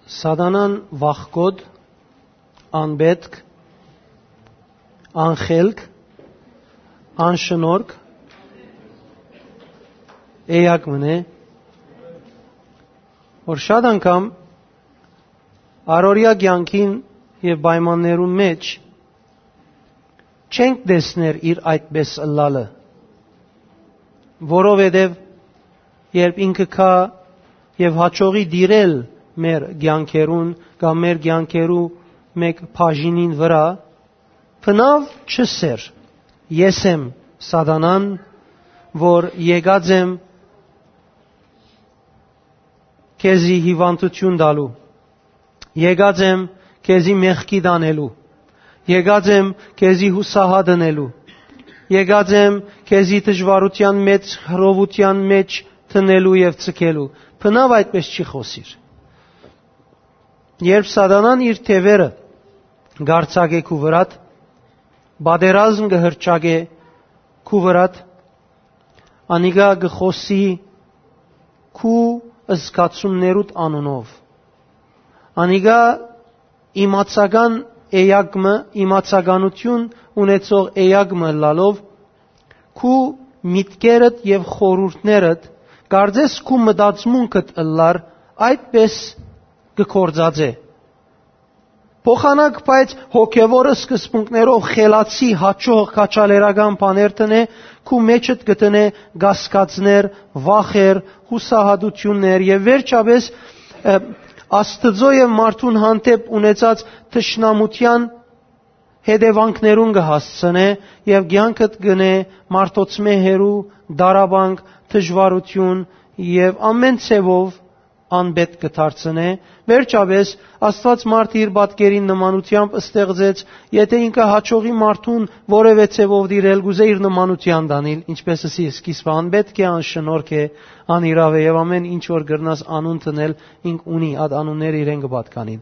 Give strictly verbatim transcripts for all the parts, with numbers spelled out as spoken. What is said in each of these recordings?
Սատանան վախկոտ, անպետք, անխելք, անշնորհք էակ մըն է, որ շատ անգամ առօրեայ կեանքին եւ պայմաններուն մէջ չենք տեսներ իր այդպէս ըլլալը, որովհետեւ երբ ինքը գայ եւ հաճողի տիրել մեր կեանքերուն կամ մեր կեանքերու մէկ բաժինին վրայ, բնաւ չ'ըսէր. «Ես եմ Սատանան, որ եկած եմ քեզի հիւանդութիւն տալու, եկած եմ քեզի մեղքի տանելու, եկած եմ քեզի յուսահատ ընելու, եկած եմ քեզի դժուարութեան մէջ, խռովութեան մէջ դնելու եւ ձգելու»։ Բնաւ այդպէս չի խօսիր։ Երբ Սատանան իր թեւերը կ'արձակէ քու վրադ, պատերազմ կը հռչակէ քու վրադ, անիկա կը խօսի քու զգացումներուդ անունով։ Անիկա իմացական էակ մը, իմացականութիւն ունեցող էակ մը ըլլալով, քու միտքերդ եւ խորհուրդներդ, կարծես քու մտածմունքդ ըլլար, այդպէս կը գործածէ։ Փոխանակ, բայց հոգեւոր սկզբունքներով խելացի, հաճող քաջալերական բաներ տնէ, քու մէջդ կը տնէ կասկածներ, վախեր, յուսահատութիւններ եւ վերջապէս, ը, Աստուծոյ եւ մարդուն հանդէպ ունեցած թշնամութեան հետեւանքներուն կը հասցնէ եւ կեանքդ կ'ընէ մարդոցմէ հեռու, դարաբանք, դժուարութիւն եւ ամէն ձեւով անպետք կը դարձնէ։ Վերջապէս, Աստուած մարդը իր պատկերին նմանութեամբ ստեղծեց, եթէ ինքը հաճողի մարդուն որեւէ ձեւով դիրել, կ'ուզէ իր նմանութեան տանիլ, ինչպէս ըսի սկիզբը, անպետք է, անշնորհք է, անիրաւ է եւ ամէն ինչ որ կրնաս անուն դնել, ինք ունի, այդ անունները իրեն կը պատկանին։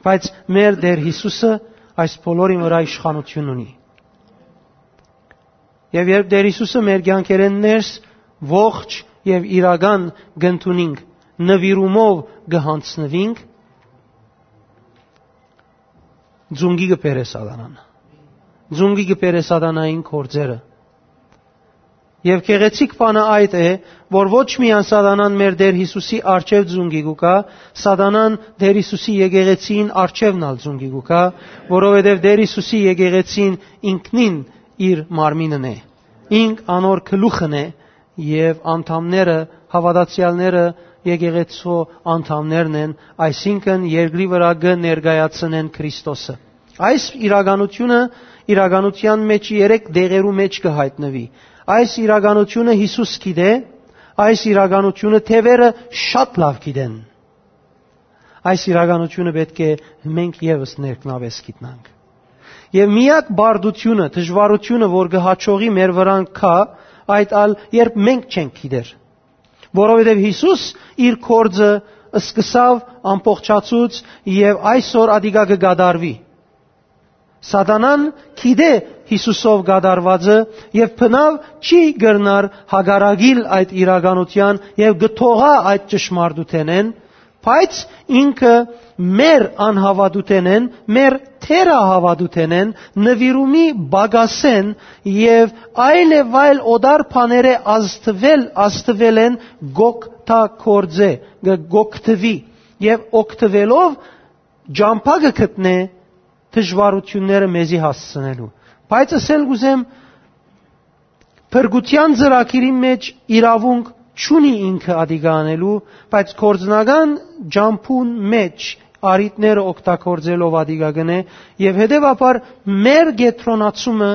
Բայց մեր Տէր Յիսուսը այս բոլորին վրայ իշխանութիւն ունի։ Եւ երբ Տէր Յիսուսը մեր կեանքերէն ներս ողջ եւ իրական կ'ընդունինք, նուիրումով կը յանձնուինք, ծունկի կը բերէ Սատանան։ Ծունկի կը բերէ Սատանային գործերը։ Եւ գեղեցիկ բանը այդ է, որ ոչ միայն Սատանան մեր Տէր Յիսուսի առջեւ ծունկի կու գայ, Սատանան Տէր Յիսուսի եկեղեցիին առջեւն ալ ծունկի կու գայ, որովհետեւ Տէր Յիսուսի եկեղեցին ինքնին իր մարմինն է, ինք անոր գլուխն է, եւ անդամները, հաւատացեալները եկեղեցու անդամներն են, այսինքն երկրի վրայ կը ներկայացնեն Քրիստոսը։ Այս իրականությունը իրականութեան մէջ երեք դեղերու մէջ կը յայտնուի։ Այս իրականությունը Յիսուս գիտէ, այս իրականությունը թեւերը շատ լաւ գիտեն։ Այս իրականությունը պէտք է մենք եւս ներքնապէս գիտնանք։ Եւ միակ բարդությունը, դժուարությունը, որ կը հաճողի մեր վրան գայ, այդ ալ երբ մենք չենք գիտեր։ Որովհետեւ Յիսուս իր գործը սկսաւ, ամբողջացուց եւ այսօր ատիկա կը կատարուի։ Սատանան գիտէ Յիսուսով կատարուածը եւ բնաւ չի կրնար հակառակիլ այդ իրականութեան եւ կը թողայ այդ ճշմարտութենէն, բայց ինքը մեր անհաւատութենէն, մեր թերահաւատութենէն, նուիրումի պակասէն եւ այլ եւ այլ օտար բաներէ ազդուել, ազդուելէն կ'օգտագործէ, կը, կ'օգտուի եւ օգտուելով ճամբայ կը գտնէ դժուարութիւնները մեզի հասցնելու։ Բայց ըսել կ'ուզեմ, փրկութեան ծրագիրին մէջ իրաւունք չունի ինքը ատիկա անելու, բայց գործնական ճամբուն մէջ առիթները օգտագործելով ատիկա կ'ընէ եւ հետեւաբար մեր կեդրոնացումը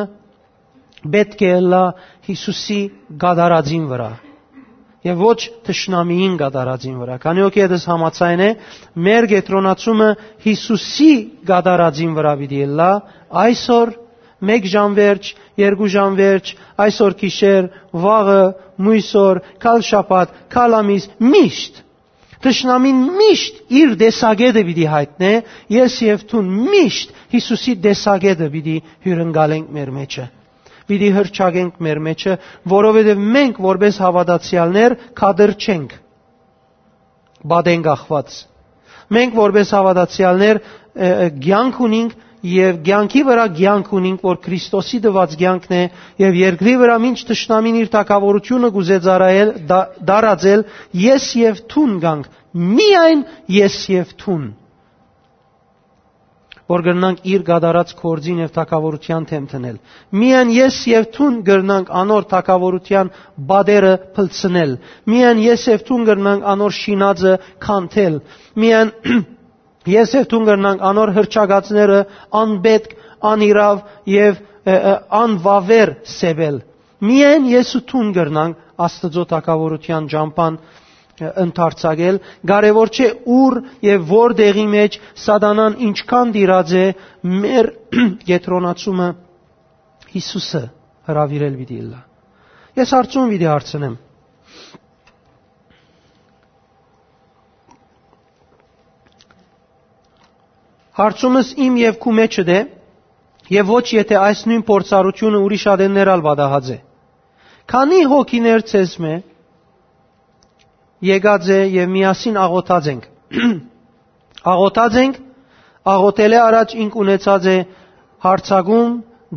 պէտք է ըլլայ Յիսուսի կատարածին վրայ եւ ոչ թշնամիին կատարածին վրայ։ Քանի որ ետս համաձայն է, մեր կեդրոնացումը Յիսուսի կատարածին վրայ պիտի ըլլայ այսօր, մէկ ժամ վերջ, երկու ժամ վերջ, այսօր գիշեր, վաղը, մոյս օր, գալ շաբաթ, գալ ամիս, միշտ։ Թշնամին միշտ իր տեսակետը պիտի յայտնէ, ես եւ դուն միշտ Յիսուսի տեսակետը պիտի հիւրընկալենք մեր մեջը, պիտի հռչակենք մեր մեջը, որովհետեւ մենք որպէս հաւատացեալներ կատր չենք, պատեն կախված։ Մենք որպէս հաւատացեալներ, ը, ը, կեանք ունինք եւ կեանքի վրայ կեանք ունինք, որ Քրիստոսի տուած կեանքն է, եւ երկրի վրայ մինչ թշնամին իր թագաւորութիւնը կ'ուզէ ծառայել, դա-, դարածել, ես եւ դուն կանք, միայն ես եւ դուն, որ կրնանք իր կատարած գործին եւ թագաւորութեան դէմ դնել։ Միայն ես եւ դուն կրնանք անոր թագաւորութեան պատերը փլցնել։ Միայն ես եւ դուն կրնանք անոր շինածը քանդել։ Միայն ես եւ դուն կրնանք անոր հռչակածները անպետք, անիրաւ եւ, ը, ը, անվաւեր սեւել։ Միայն ես ու դուն կրնանք Աստուծոյ թագաւորութեան ճամբան, ը, ընդարձակել։ Կարեւոր չէ՝ ուր եւ որ տեղի մէջ սատանան ինչքան տիրած է, մեր կեդրոնացումը Յիսուսը հրաւիրել պիտի ըլլայ։ Ես հարցում պիտի հարցնեմ։ Հարցումս իմ եւ քու մէջդ է, եւ ոչ եթէ այս նոյն փորձառութիւնը ուրիշ ատեններ ալ պատահած է։ Քանի՞ հոգիներ ձեզմէ եկած է եւ միասին աղօթած ենք։ Աղօթած ենք, աղօթելէ առաջ ինք ունեցած է յարձակում,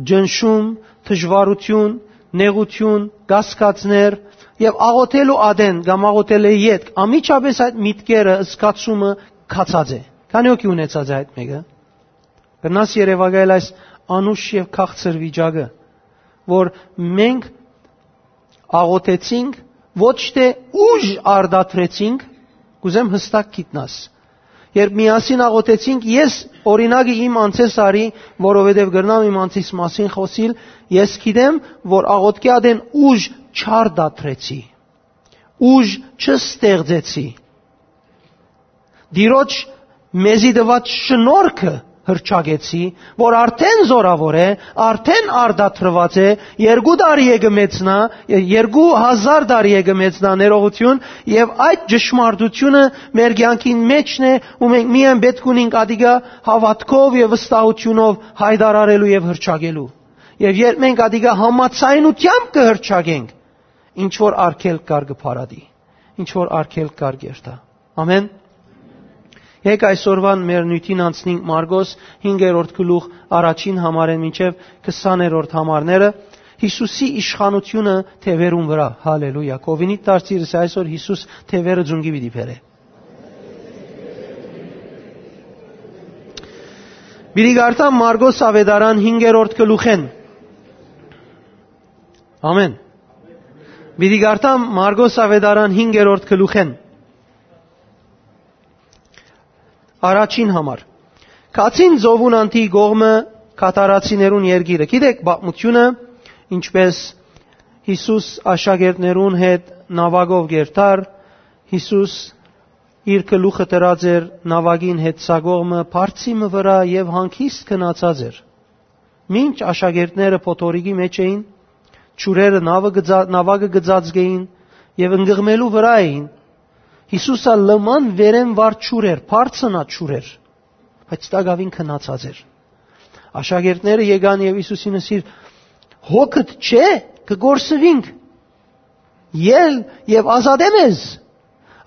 ճնշում, դժուարութիւն, նեղութիւն, կասկածներ, եւ աղօթելու ատեն կամ աղօթելէ ետք անմիջապէս այդ միտքերը, զգացումը գացած է։ Քանի՞ հոգի ունեցած է այդ մէկը։ Կրնաս երեւակայել այս անուշ եւ քաղցր վիճակը, որ մենք աղօթեցինք, ոչ թէ ուժ արտադրեցինք, կ'ուզեմ յստակ գիտնաս։ Երբ միասին աղօթեցինք, ես օրինակը իմ անցէս արի, որովհետեւ կրնամ իմ անցիս մասին խօսիլ, ես գիտեմ, որ աղօթքի ատեն ուժ չարտադրեցի, ուժ չստեղծեցի։ Տիրոջ մեզի տուած շնորհքը հռչակեցի, որ արդեն զօրաւոր է, արդեն արտադրուած է, երկու տարի է կը մեծնայ, երկու հազար տարի է կը մեծնայ ներողութիւն, եւ այդ ճշմարտությունը մեր կեանքին մէջն է, ու մենք միայն պէտք ունինք ատիկա հաւատքով եւ վստահութիւնով յայտարարելու եւ հռչակելու։ Եւ երբ մենք ատիկա համաձայնությամբ կը հռչակենք, ինչ որ արգելք կար կը փարատի, ինչ որ արգելք կար կ'երթայ։ Ամեն։ Եկեք այսօրուան մեր նիւթին անցնենք Մարկոս հինգերորդ գլուխ առաջին համարէն մինչեւ քսաներորդ համարները, Յիսուսի իշխանութիւնը թեւերուն վրայ։ Հալելույա։ Կովինիդ դարձիրս այսօր Յիսուս թեւերը ձունկի պիտի բերէ։ Պիտի կարդամ Մարկոս Աւետարան հինգերորդ գլուխէն։ Ամեն։ Պիտի կարդամ Մարկոս Աւետարան հինգերորդ գլուխէն։ Առաջին համար։ Գացին ծովուն անդի կողմը, Կաթարացիներուն երկիրը։ Գիտեք պատմութիւնը, ինչպէս Յիսուս աշակերտներուն հետ նաւակով կ'երթար, Յիսուս իր գլուխը դրած էր նաւակին հետ սա կողմը, բարձի մը վրայ, եւ հանգիստ գնացած էր։ Մինչ աշակերտները փոթորիկի մէջ էին, ջուրերը նաւը գծա-, նաւակը գծածկ էին եւ ընկղմելու վրայ էին, Յիսուս ալ լման վերէն վար ջուր էր, բարձնա ջուր էր, բայց տակաւին քնացած էր։ Աշակերտները եկան եւ Յիսուսին ըսին. «Հոգդ չէ, կը կորսուինք, ել եւ ազատէ մեզ»։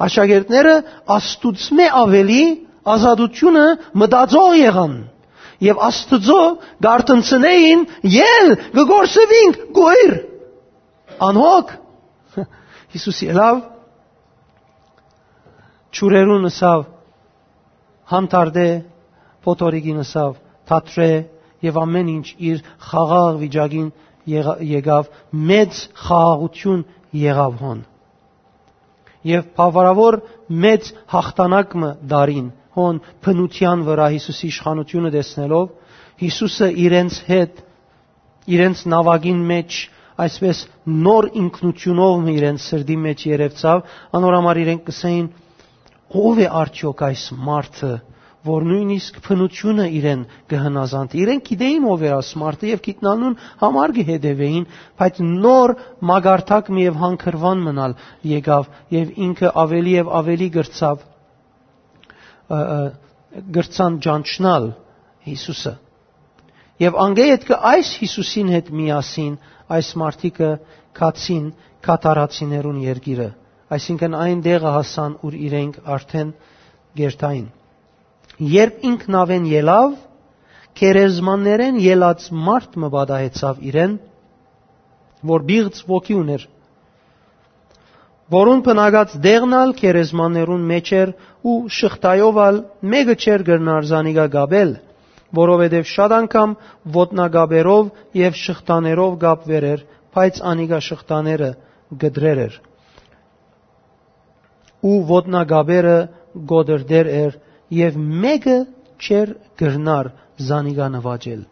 Աշակերտները Աստուծմէ աւելի ազատութիւնը մտածող եղան եւ Աստուծոյ կ'արթնցնէին. «Ել, կը կորսուինք, կոյր, անհոգ»։ Յիսուս ելաւ, ջուրերուն ըսաւ. «Հանդարտէ», փոթորիկին ըսաւ. «Դադրէ», եւ ամէն ինչ իր խաղաղ վիճակին եղա-, եկաւ, մեծ խաղաղութիւն եղաւ հոն։ Եւ բավարարաւոր մեծ յաղթանակ մը տարին հոն բնութեան վրայ Յիսուսի իշխանութիւնը տեսնելով, Յիսուսը իրենց հետ, իրենց նաւակին մէջ, այսպես նոր ինքնութիւնով մը իրենց սրտի մէջ երեւցաւ, անոր համար իրենք կ'ըսէին. «Ո՞վ է արդեօք այս մարդը, որ նոյնիսկ բնութիւնը իրեն կը հնազանդի»։ Իրենք գիտէին ով էր այս մարդը եւ գիտնալուն համար կը հետեւէին, բայց նոր մակարդակ մը եւ հանգրուան մնալ եկաւ եւ ինքը աւելի եւ աւելի կրցաւ, ը, ը, կրցան ճանչնալ Յիսուսը։ Եւ անկէ ետքը այս Յիսուսին հետ միասին այս մարդիկը գացին Կաթարացիներուն երկիրը, այսինքն այն տեղը հասան, ուր իրենք արդեն կ'երթային։ Երբ ինքնաւեն ելաւ, գերեզմաններէն ելած մարդ մը պատահեցաւ իրեն, որ պիղծ ոգի ունէր, որուն բնակած տեղն ալ գերեզմաններուն մէջ էր ու շղթայով ալ մէկը չէր կրնար զանիկա կապել, որովհետեւ շատ անգամ ոտնակապերով եւ շղթաներով կապուեր էր, բայց անիկա շղթաները կտրեր էր ու ոտնակապերը կոտրտեր էր եւ մէկը չէր կրնար զանիկա նուաճել։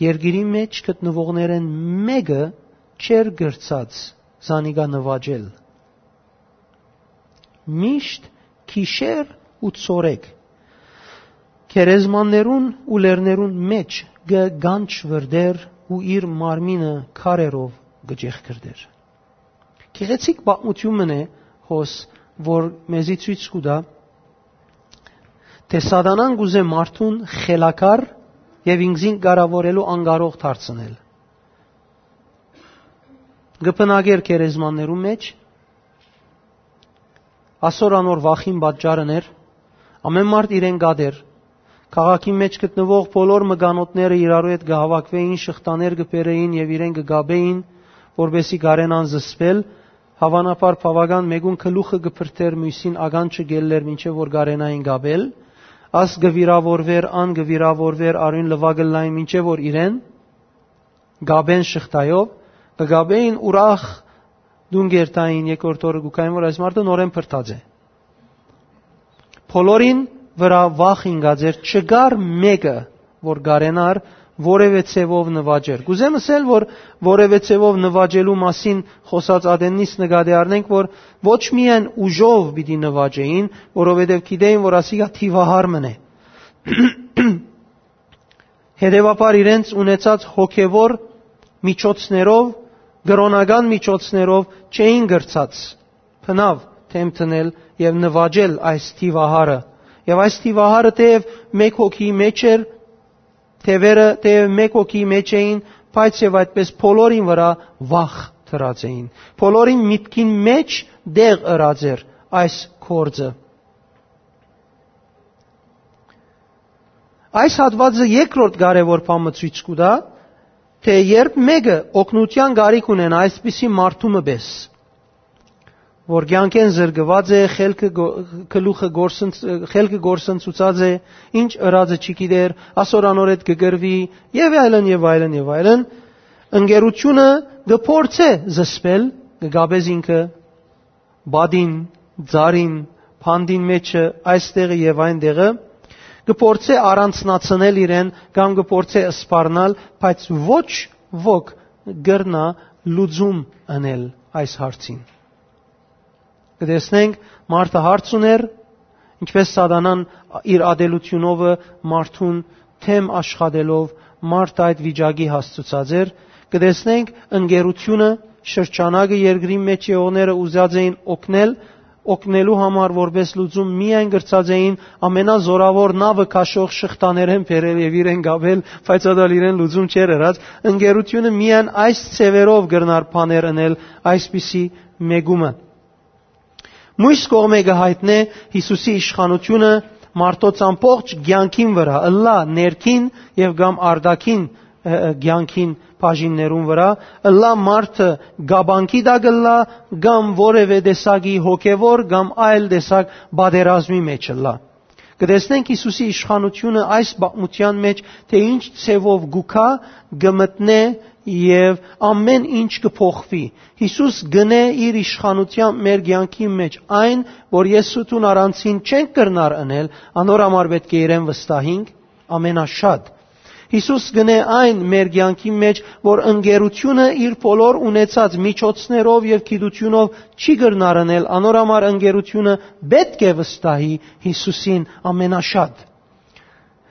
Երկիրի մէջ գտնուողներէն մէկը չէր կրցած զանիկա նուաճել։ Միշտ գիշեր ու ցորեկ գերեզմաններուն ու լեռներուն մէջ կը գանչվրդեր ու իր մարմինը քարերով կը ճեղքրդեր։ Գեղեցիկ պատմութիւն մըն է հոս, որ մեզի ցոյց կու տայ, թէ Սատանան կ'ուզէ մարդուն խելագար եւ ինքզին կառաւորելու անկարող դարձնել։ Կը բնակեր գերեզմաններուն մէջ, ասոր անոր վախին պատճառ ըներ, ամէն մարդ իրեն կատեր, քաղաքին մէջ գտնուող բոլոր մկանոթները իրարու հետ կը հաւաքուէին, շղթաներ կը բերէին եւ իրեն կը կապէին, որպէսզի կարենան զսպել, հաւանաբար բաւական մէկուն գլուխը կը փրթէր, միւսին ականջը կ'ելլէր, մինչեւ որ կարենային կապել, աս կը վիրաւորուէր, ան կը վիրաւորուէր, արոյն լուայ կ'ըլլային, մինչեւ որ իրեն կապեն շղթայով, կը կապէին ուրախ տուն կերթային, երկրորդ օրը կու գային, որ այս մարդը նորէն փրթած է։ Բոլորին վրայ վախ ինկած էր, չկար մէկը, որ կարենար որեւէ ձեւով նուաճեր։ Կ'ուզեմ ըսել, որ որեւէ ձեւով նուաճելու մասին խօսած ատեննից նկատի առնենք, որ ոչ միայն ուժով պիտի նուաճէին, որովհետեւ գիտէին, որ ասիկա թիւահար մըն է։ Հետեւաբար իրենց ունեցած հոգեվոր միջոցներով, կրօնական միջոցներով չէին կրցած բնաւ դէմ դնել եւ նուաճել այս թիւահարը։ Եւ այս թիւահարը թեեւ մէկ հոգի մէջ էր, թեւերը թեեւ մէկ հոգի մէջ էին, բայց եւ այդպես բոլորին վրայ վախ դրած էին։ Բոլորին միտքին մէջ տեղ ըրած էր այս գործը։ Այս հատուածը երկրորդ կարեւոր բան մը ցոյց կու տայ, թէ երբ մէկը օգնութեան կարիք ունենայ այսպիսի մարդու մը պէս, որ կեանքէն զրկուած է, խելքը գո-, գլուխը գործընց-, խելքը գործընծուցած է, ինչ ըրածը չի գիտեր, ասոր անոր հետ կը կռուի, եւ այլն, եւ այլն, եւ այլն, ընկերությունը կը փորձէ զսպել, կը կապէ զինքը, պատին, ծառին, բանտին մէջը, այստեղը եւ այնտեղը, կը փորձէ առանձնացնել իրեն կամ կը փորձէ սպառնալ, բայց ոչ ոք կրնայ լուծում ընել այս հարցին։ Կը տեսնենք, մարդը հարց ուներ, ինչպես Սատանան իր ատելութիւնովը մարդուն դէմ աշխատելով մարդը այդ վիճակի հասցուցած էր, կը տեսնենք ընկերությունը, շրջանակը, երկրի մէջ եղողները ուզած էին օգնել, օգնելու համար որպես լուծում միայն կրցած էին ամենազորաւոր նաւը քաշող շղթաներէն բերել եւ իրեն կապել, բայց ատալ իրեն լուծում չէր ըրած։ Ընկերությունը միայն այս ձևերով կրնար բաներ ընել այսպիսի մեկումը։ Մոյս կողմէ կը յայտնէ Յիսուսի իշխանութիւնը մարդոց ամբողջ կեանքին վրայ, ըլլայ ներքին եւ կամ արտաքին, ը, ը, կեանքին բաժիններուն վրայ, ըլլայ մարդը կապանքի տակ ըլլայ կամ որեւէ տեսակի հոգեվոր կամ այլ տեսակ պատերազմի մէջ ըլլայ։ Կը տեսնենք Յիսուսի իշխանութիւնը այս պատմութեան մէջ, թէ ինչ ձևով կու գայ, կը մտնէ եւ ամէն ինչ կը փոխուի։ Յիսուս կ'ընէ իր իշխանութեան մեր կեանքի մէջ այն, որ ես ու դուն առանցին չենք կրնար ընել, անոր համար պէտք է իրեն վստահինք ամենաշատ։ Յիսուս կ'ընէ այն մեր կեանքի մէջ, որ ընկերությունը իր բոլոր ունեցած միջոցներով եւ գիտութիւնով չի կրնար ընել, անոր համար ընկերությունը պէտք է վստահի Յիսուսին ամենաշատ։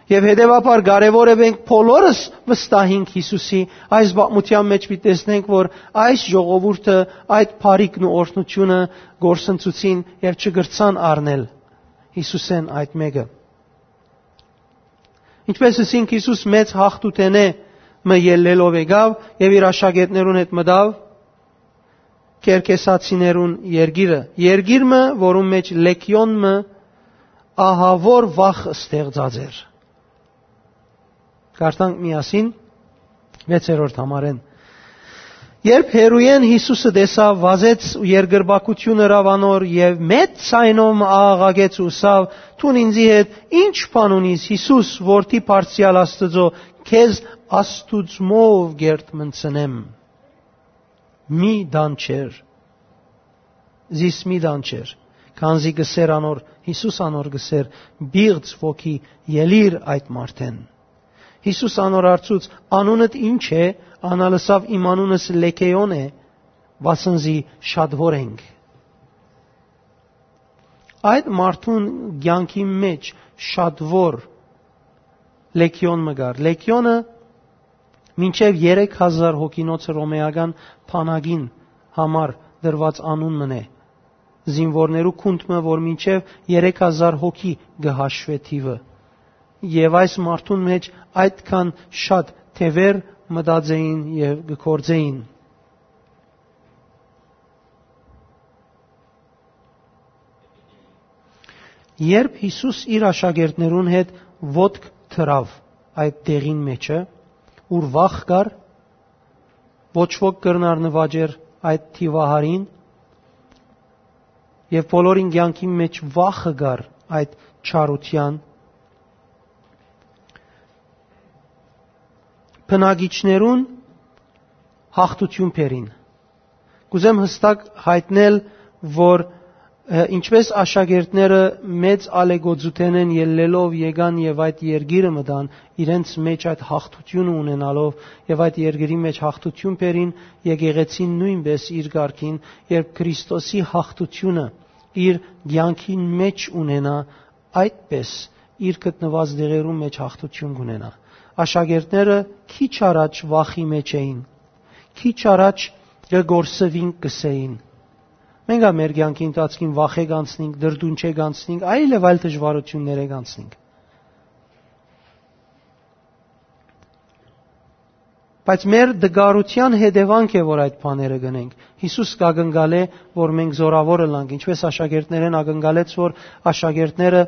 Եւ հետեւաբար կարեւոր է մենք բոլորս վստահինք Յիսուսի, այս պատմութեան մէջ պիտի տեսնենք, որ այս ժողովուրդը այդ բարիքն ու օրհնութիւնը գործընծուցին եւ չկրցան առնել Յիսուսէն այդ մէկը։ Ինչպես ըսինք, Յիսուս մեծ յաղթութենէ մը ելլելով եկաւ եւ իր աշակերտներուն հետ մտաւ Կերկեսացիներուն երկիրը, երկիր մը, որուն մէջ լեգիոն մը ահաւոր վախ ստեղծած էր։ Կարդանք միասին վեցերորդ համարէն։ Երբ հեռուէն Յիսուսը տեսաւ, վազեց ու երկրպագութիւն ըրաւ անոր եւ մեծ ձայնով մը աղաղակեց ու ըսաւ. «Դուն ինծի հետ ի՞նչ բան ունիս, Յիսուս, որդի բարձրեալ Աստուծոյ, քեզ Աստուծմով կերտմնցնեմ։ Մի դանչեր, զիս մի դանչեր»։ Քանզի կ'ըսէր անոր, Յիսուս անոր կ'ըսէր. «Պիղծ ոգի, ելի՛ր այդ մարդէն»։ Յիսուս անոր հարցուց. «Անունդ ի՞նչ է»։ Ան ալ ըսաւ. «Իմ անունս Լեգէոն է, վասն զի շատուոր ենք»։ Այդ մարդուն կեանքի մէջ շատուոր լեգէոն մը կար։ Լեգէոնը մինչեւ երեք հազար հոգինոց հռոմէական բանակին համար դրուած անուն մըն է, զինուորներու գունդ մը, որ մինչեւ երեք հազար հոգի կը հաշուէ թիւը։ Եւ այս մարդուն մէջ այդքան շատ թեւեր մտած էին եւ կը գործէին։ Երբ Յիսուս իր աշակերտներուն հետ ոտք դրաւ այդ տեղին մէջը, ուր վախ կար, ոչ ոք կրնար նուաճեր այդ թիւահարին, եւ բոլորին կեանքին մէջ վախը կար այդ չարութեան, բնակիչներուն հաղթութիւն բերին։ Կ'ուզեմ յստակ յայտնել, որ, ը, ինչպէս աշակերտները մեծ ալեգոծութենէն ելլելով եկան եւ այդ երկիրը մտան, իրենց մէջ այդ հաղթութիւնը ունենալով եւ այդ երկրի մէջ հաղթութիւն բերին, եկեղեցին նոյնպէս իր կարգին, երբ Քրիստոսի հաղթութիւնը իր կեանքին մէջ ունենայ, այդպէս իր գտնուած տեղերուն մէջ հաղթութիւն կ'ունենայ։ Աշակերտները քիչ առաջ վախի մէջ էին, քիչ առաջ կը կորսուին, կ'ըսէին։ Մենք ալ մեր կեանքի ընթացքին վախէ կանցնենք, դրդունչէ կանցնենք, այլ եւ այլ դժուարութիւններէ կանցնենք։ Բայց մեր դգարութեան հետեւանք է, որ այդ բաները կ'ընենք։ Յիսուս կ'ակնկալէ, որ մենք զօրաւոր ըլլանք, ինչպէս աշակերտներէն ակնկալեց, որ աշակերտները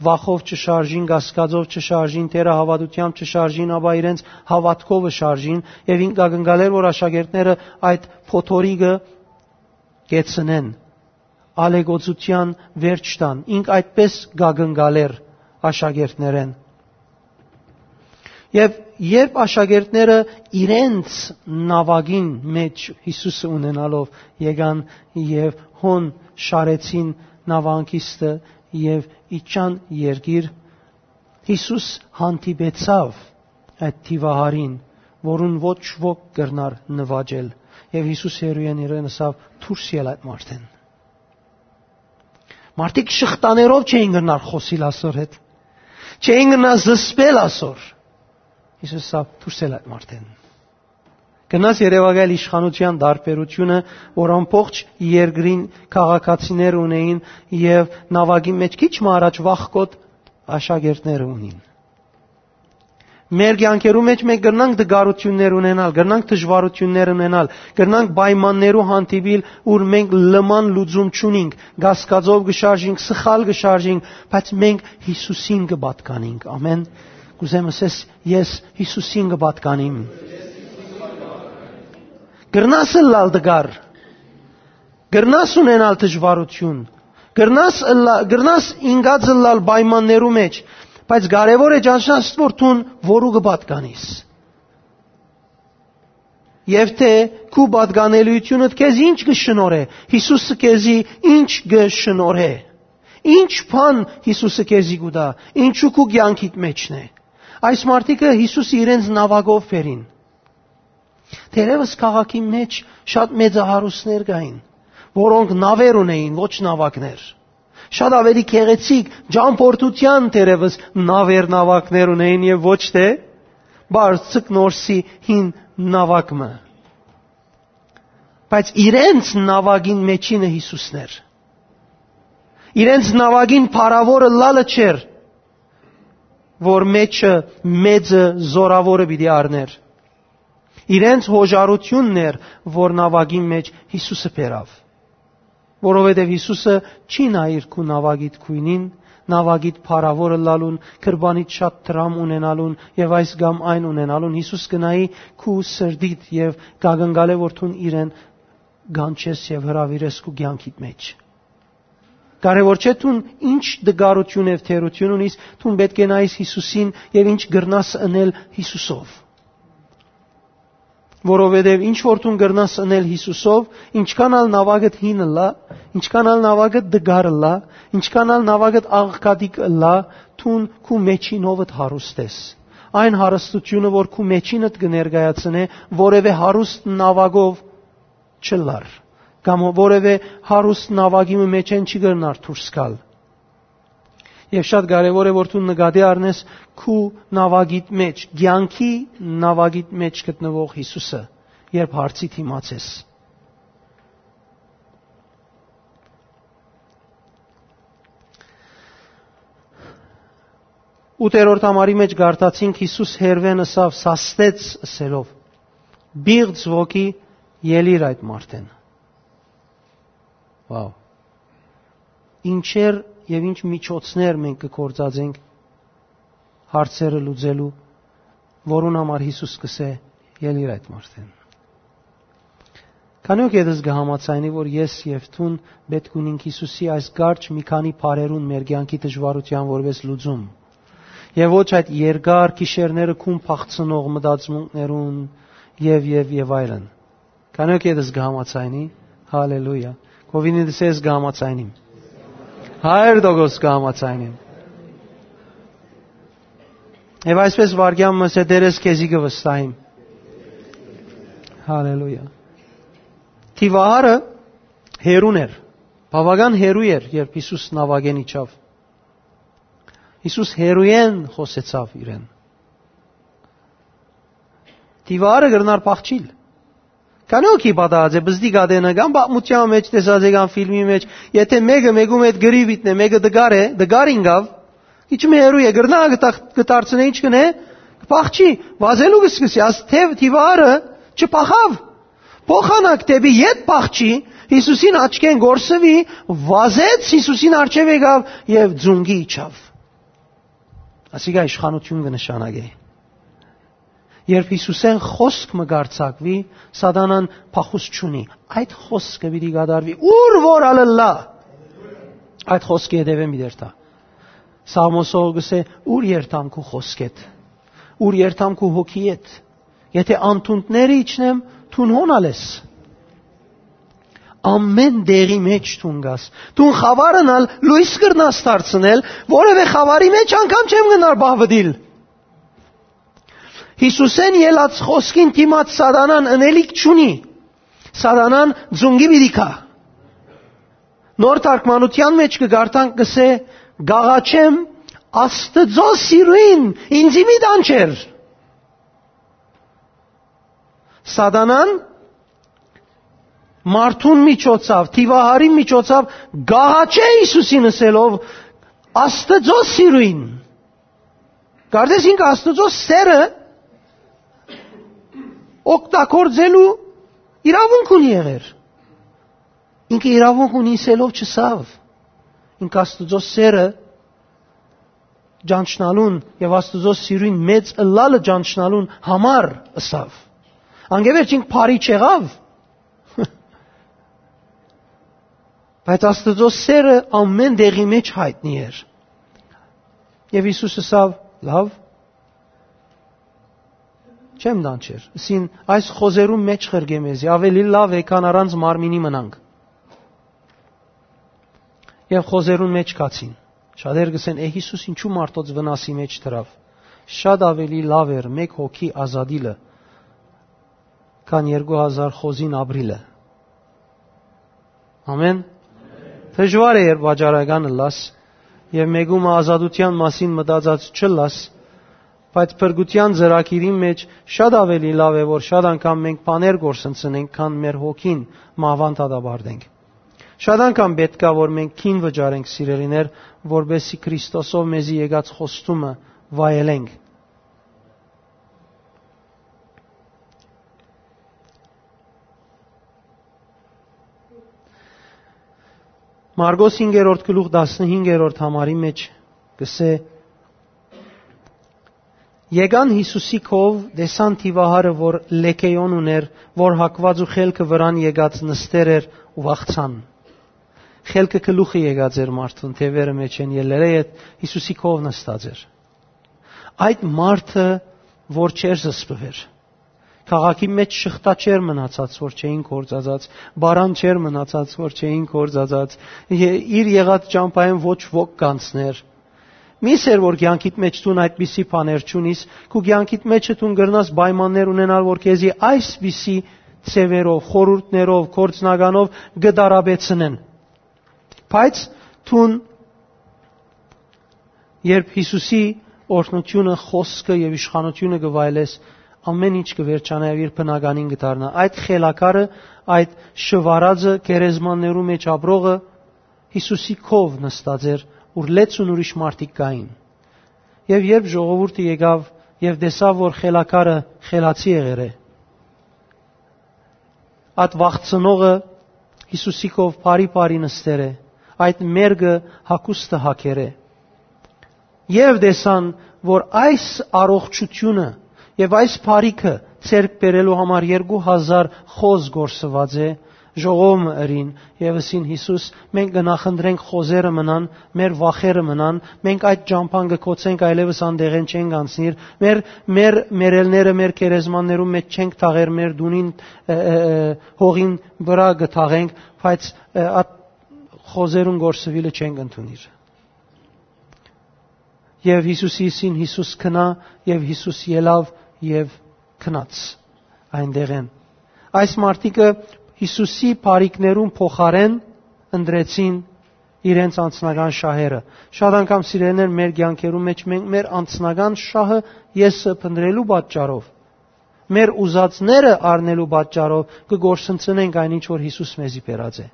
վախով չշարժին, կասկածով չշարժին, թերահաւատութեամբ չշարժին, ապա իրենց հաւատքովը շարժին, եւ ինք կ'ակնկալէր, որ աշակերտները այդ փոթորիկը կեցնեն, ալեգոծութեան վերջ տան։ Ինք այդպէս կ'ակնկալէր աշակերտներէն։ Եւ երբ աշակերտները իրենց նաւակին մէջ Յիսուսը ունենալով եկան եւ հոն շարեցին նաւահանգիստը եւ իջան երկիր, Յիսուս հանդիպեցաւ այդ դիւահարին, որուն ոչ ոք կրնար նուաճել, եւ Յիսուս հեռուէն իրեն ըսաւ. «Դուրս ել այդ մարդէն»։ Մարդիկ շղթաներով չէին կրնար խօսիլ ասոր հետ, չէին կրնար զսպել ասոր։ Յիսուս ըսաւ. «Դուրս ել այդ մարդէն»։ Գնաս երեւակայել իշխանության տարբերությունը, որ ամբողջ երկրին քաղաքացիներ ունեին եւ նավակի մեջ քիչ մը առաջ վախկոտ աշակերտները ունին։ Մեր կյանքերու մեջ մենք կրնանք դժվարություններ ունենալ, կրնանք դժվարություններ ունենալ, կրնանք պայմաններու հանդիպիլ, ուր մենք լման լուծում չունինք, կասկածով կը շարժինք, սխալ կը շարժինք, բայց մենք Յիսուսին կը պատկանինք։ Ամեն։ Կուզեմ ասես, ես Յիսուսին կը պատկանիմ։ Կրնաս ըլլալ դժուար, կրնաս ունենալ դժվարություն, կրնաս ըլլա-, կրնաս ինգած ըլլալ պայմաններու մեջ, բայց կարեւոր է ճանչնաս, որ դուն որու կը պատկանիս։ Եվ թե քու պատկանելիությունդ քեզ ինչ կը շնորհէ, Յիսուսը քեզի ինչ կը շնորհէ, ինչ բան Յիսուսը քեզի կու տայ, ինչու քու կյանքիդ մեջն է։ Այս մարդիկը Յիսուսը իրենց նավակով բերին։ Թերևս քաղաքի մեջ շատ մեծահարուստներ կային, որոնք նավեր ունեին, ոչ նավակներ։ Շատ ավելի գեղեցիկ, ճամփորդության թերևս նավեր, նավակներ ունեին եւ ոչ թե բարձիկ նորսի հին նավակ մը։ Բայց իրենց նավակին մեջինը Յիսուսն էր։ Իրենց նավակին փառաւորը լալը չէր, որ մեջը մեծը զորաւորը պիտի առներ։ Իրենց հոժարությունն էր, որ նավակին մեջ Յիսուսը բերավ, որովհետև Յիսուսը չի նայիր քու նավակիդ գոյնին, նաւագիդ փառաւոր ըլլալուն, կրպանիդ շատ դրամ ունենալուն եւ այս կամ այն ունենալուն, Յիսուս կը նայի քու սրտիդ եւ կ'ակնկալէ որ դուն իրեն կանչես եւ հրաւիրես քու կեանքիդ մէջ։ Կարեւոր չէ դուն ինչ տկարութիւն եւ թերութիւն ունիս, դուն պէտք է նայես Յիսուսին եւ ինչ կրնաս ընել Յիսուսով։ Որովհետեւ ինչ որ դուն կրնաս ընել Յիսուսով, ինչքան ալ նաւագդ հին ըլլայ, ինչքան ալ նաւագդ տկար ըլլայ, ինչքան ալ նաւագդ աղքատիկ ըլլայ, դուն քու մեջինովդ հարուստ ես։ Այն հարստութիւնը որ քու մեջինդ կը ներկայացնէ, որեւէ հարուստ նաւագով չըլլար, կամ որեւէ հարուստ նաւագի մը մէջէն չի կրնար դուրս գալ։ Եւ շատ կարեւոր է որ դու նկատի առնես քու նաւագիդ մէջ, կեանքի նաւագիդ մէջ գտնուող Յիսուսը, երբ հարցի դիմաց ես։ Ութերորդ համարի մէջ կարդացինք, Յիսուս հերուէն ըսաւ, սաստեց ըսելով. «Պիղծ ոգի, ելի՛ր այդ մարդէն»։ Վաու։ Ինչեր եւ ինչ միջոցներ մենք կը գործածենք հարցերը լուծելու, որուն համար Յիսուս կ'ըսէ. «Ելի՛ր այդ մարդէն»։ Քանի՞ ոգի ետս կը համաձայնի, որ ես եւ դուն պէտք ունինք Յիսուսի այս կարճ մի քանի բառերուն մեր կեանքի դժուարութեան որպէս լուծում, եւ ոչ այդ երկար գիշերները քուն փախցնող մտածմունքներուն եւ, եւ, եւ այլն։ Քանի՞ ոգի ետս կը համաձայնի։ Հալելույա։ Կովինի դսես կը համաձայնիմ։ Հարյուր տոկոս կը համաձայնիմ։ Եւ այսպես վարքեան մը սե դերես քեզի կը վստահիմ։ Հալելույա։ Դիվահարը հերուն էր, բաւական հերու էր, երբ Յիսուս նաւագէն իջաւ։ Յիսուս հերուէն խօսեցաւ իրեն։ Դիվարը կրնար փախչիլ։ Քանի՞ ոգի պատահած է, բզդի կատենը կամ պատմության մեջ տեսած է կամ ֆիլմի մեջ, եթե մեկը մեկու հետ գրի վիտնէ, մեկը դկար է, դկար ինկաւ, իջում հերու է, կրնա կտա-, կդարձնէ, ինչ կնե, կփախչի, վազելու կսկսի, աս թեւ դիվարը չփախաւ։ Փոխանակ դէպի ետ փախչի, Յիսուսին աչքէն կորսուի, վազեց, Յիսուսին առջեւ եկաւ եւ ձունկի իջաւ։ Ասիկա իշխանութիւն կը նշանակէ։ Երբ Յիսուսէն խօսք մը կարձակուի, սատանան փախուստ չունի։ Այդ խօսքը պիտի կատարուի, ուր որ ալ ըլլայ, այդ խօսքը հետեւէն պիտի երթայ։ Սաղմոսողը կ'ըսէ. «Ուր երթամ քու խօսքէդ, ուր երթամ քու հոգիէդ, եթե անթունդները իջնեմ, դուն հոն ալ ես»։ Ամէն տեղի մէջ դուն կաս։ Դուն խաւարն ալ լոյս կրնաս դարձնել, որեւէ խաւարի մէջ անգամ չեմ գնար պահպտիլ։ Յիսուսէն ելած խօսքին դիմաց սատանան ընելիք չունի։ Սատանան ձունկի պիտի գայ։ Նոր թարգմանութեան մէջ կը կարդանք, կ'ըսէ. «Կ'աղաչեմ Աստուծոյ սիրոյն, ինծի մի տանջեր»։ Սատանան մարդուն միջոցով, դիվահարին միջոցով կ'աղաչէ Յիսուսին ըսելով. «Աստուծոյ սիրոյն»։ Կարծես ինքը Աստուծոյ սերը օգտագործելու իրաւունք ունի եղեր։ Ինքը իրաւունք ունի ըսելով չըսաւ։ Ինքը Աստուծոյ սերը ճանչնալուն եւ Աստուծոյ սիրոյն մեծ ըլլալը ճանչնալուն համար ըսաւ։ Անկէ վերջ ինք բարի չեղաւ, բայց Աստուծոյ սերը ամէն տեղի մէջ յայտնի էր։ Եւ Յիսուս ըսաւ. «Լաւ, չեմ տանջեր»։ Ըսին. «Այս խոզերուն մէջ ղրկէ մեզի, աւելի լաւ է, քան առանց մարմինի մնանք»։ Եւ խոզերուն մէջ գացին։ Շատեր կ'ըսեն. «Է, Յիսուս ինչու մարդոց վնասի մէջ դրաւ»։ Շատ աւելի լաւ էր մէկ հոգի ազատիլը, քան երկու հազար խոզին ապրիլը։ Ամէն։ Դժուար է, երբ վաճառական ըլլաս եւ մեկու մը ազատութեան մասին մտածած չըլլաս, բայց փրկութեան ծրագիրին մէջ շատ աւելի լաւ է, որ շատ անգամ մենք բաներ կորսնցնենք, քան մեր հոգին մահուան դատապարտենք։ Շատ անգամ պէտք է, որ մենք գին վճարենք, սիրելիներ, որպեսզի Քրիստոսով մեզի եկած խոստումը վայելենք։ Մարկոս հինգերորդ գլուխ, տասնհինգերորդ համարի մէջ կ'ըսէ. «Եկան Յիսուսի քով, տեսան դիւահարը, որ լեգէոն ունէր, որ հագուած ու խելքը վրան եկած նստեր էր ու վախցան»։ Խելքը գլուխը եկած էր մարդուն, թեւերը մէջ են ելլերէ յետ, Յիսուսի քով նստած էր։ Այդ մարդը, որ չէր զսպուեր, քաղաքի մէջ շղթա չէր մնացած, որ չէին կործացած, պարան չէր մնացած, որ չէին կործացած, ե-, իր եղած ճամբայէն ոչ ոք կանցներ։ Միս էր, որ կեանքիդ մէջ դուն այդպիսի բաներ չունիս, քու կեանքիդ մէջը դուն կրնաս պայմաններ ունենալ, որ քեզի այսպիսի ձեւերով, խորհուրդներով, գործնականով կը տարապեցնեն։ Բայց դուն, երբ Յիսուսի օրհնութիւնը, խօսքը եւ իշխանութիւնը կը վայելես, ամէն ինչ կը վերջանայ եւ իր բնականին կը դառնայ։ Այդ խելագարը, այդ շուարածը, գերեզմաններու մէջ ապրողը, Յիսուսի քով նստած էր, ուր լեցուն ուրիշ մարդիկ կային։ Եւ երբ ժողովուրդը եկաւ եւ տեսաւ, որ խելագարը խելացի եղեր է, այդ վախցնողը Յիսուսի քով բարի-բարի նստեր է, այդ մերկը հագուստը հագեր է։ Եւ տեսան, որ այս առողջութիւնը եւ այս բարիքը ձեռք բերելու համար երկու հազար խոզ կորսուած է, ժողովը ըրին եւ ըսին. «Յիսուս, մենք կը նախընտրենք խոզերը մնան, մեր վախերը մնան, մենք այդ ճամբան կը գոցենք, այլեւս անդեղէն չենք անցնիր, մեր, մեր մեռելները մեր գերեզմաններու մէջ չենք թաղեր, մեր դունին, ը, ը, ը, հողին վրայ կը թաղենք, բայց, ը, այդ խոզերուն կորսուիլը չենք ընդունիր»։ Եւ Յիսուսի ըսին. «Յիսուս, գնա», եւ Յիսուս ելաւ եւ գնաց այնտեղէն։ Այս մարդիկը Յիսուսի բարիքներուն փոխարէն ընտրեցին իրենց անձնական շահերը։ Շատ անգամ, սիրելիներ, մեր կեանքերու մէջ մենք մեր անձնական շահը, եսը փնտրելու պատճառով, մեր ուզածները առնելու պատճառով կը կորսնցնենք այն ինչ որ Յիսուս մեզի բերած է։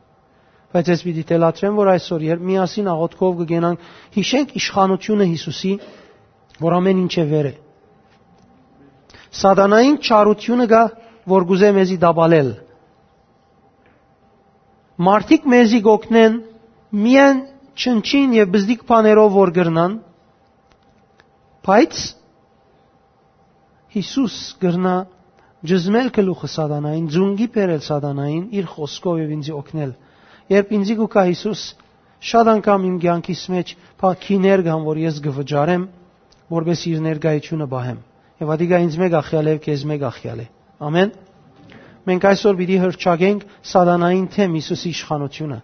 Բայց ես պիտի թելադրեմ, որ այսօր, երբ միասին աղոթքով կը կենանք, յիշենք իշխանութիւնը Յիսուսի, որ ամէն ինչէ վեր է։ Սատանային չարութիւնը կայ, որ կ'ուզէ մեզի տապալել։ Մարդիկ մեզի կ'օգնեն միայն չնչին եւ բզդիկ բաներով որ կրնան, բայց Յիսուս կրնայ ճզմել գլուխը սատանային, ձունկի բերել սատանային, իր խօսքով եւ ինձի օգնել։ Երբ ինձի կու գայ Յիսուս, շատ անգամ իմ կեանքիս մէջ փա-, գիներ կան, որ ես կը վճարեմ, որպէս իր ներկայությունը պահեմ։ Եւ ատիկա ինձ մէկ ախեալ է, քեզ մէկ ախեալ է։ Ամեն։ Մենք այսօր պիտի հրճակենք սատանային թեմ Յիսուսի իշխանութիւնը։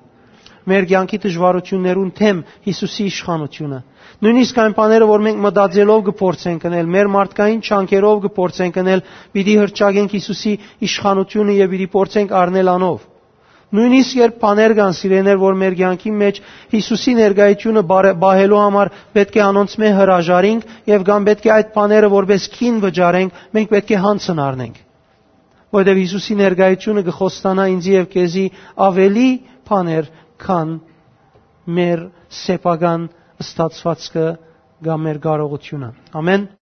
Մեր կեանքի դժվարութիւններուն թեմ Յիսուսի իշխանութիւնը։ Նոյնիսկ այն բաները, որ մենք մտածելով կը փորձենք ընել, մեր մարդկային չանքերով կը փորձենք ընել, պիտի հրճակենք Յիսուսի իշխանութիւնը եւ պիտի փորձենք առնել անով։ Նոյնիսկ երբ բաներ կան, սիրելիներ, որ մեր կեանքի մէջ Յիսուսի ներկայությունը բարե-, պահելու համար պէտք է անոնցմէ հրաժարինք եւ կամ պէտք է այդ բաները որպէս գին վճարենք, մենք պէտք է յանցն առնենք։ Որովհետեւ Յիսուսի ներկայությունը կը խոստանայ ինձի եւ քեզի աւելի բաներ, քան մեր սեփական ստացուածքը կամ մեր կարողութիւնը։ Ամեն։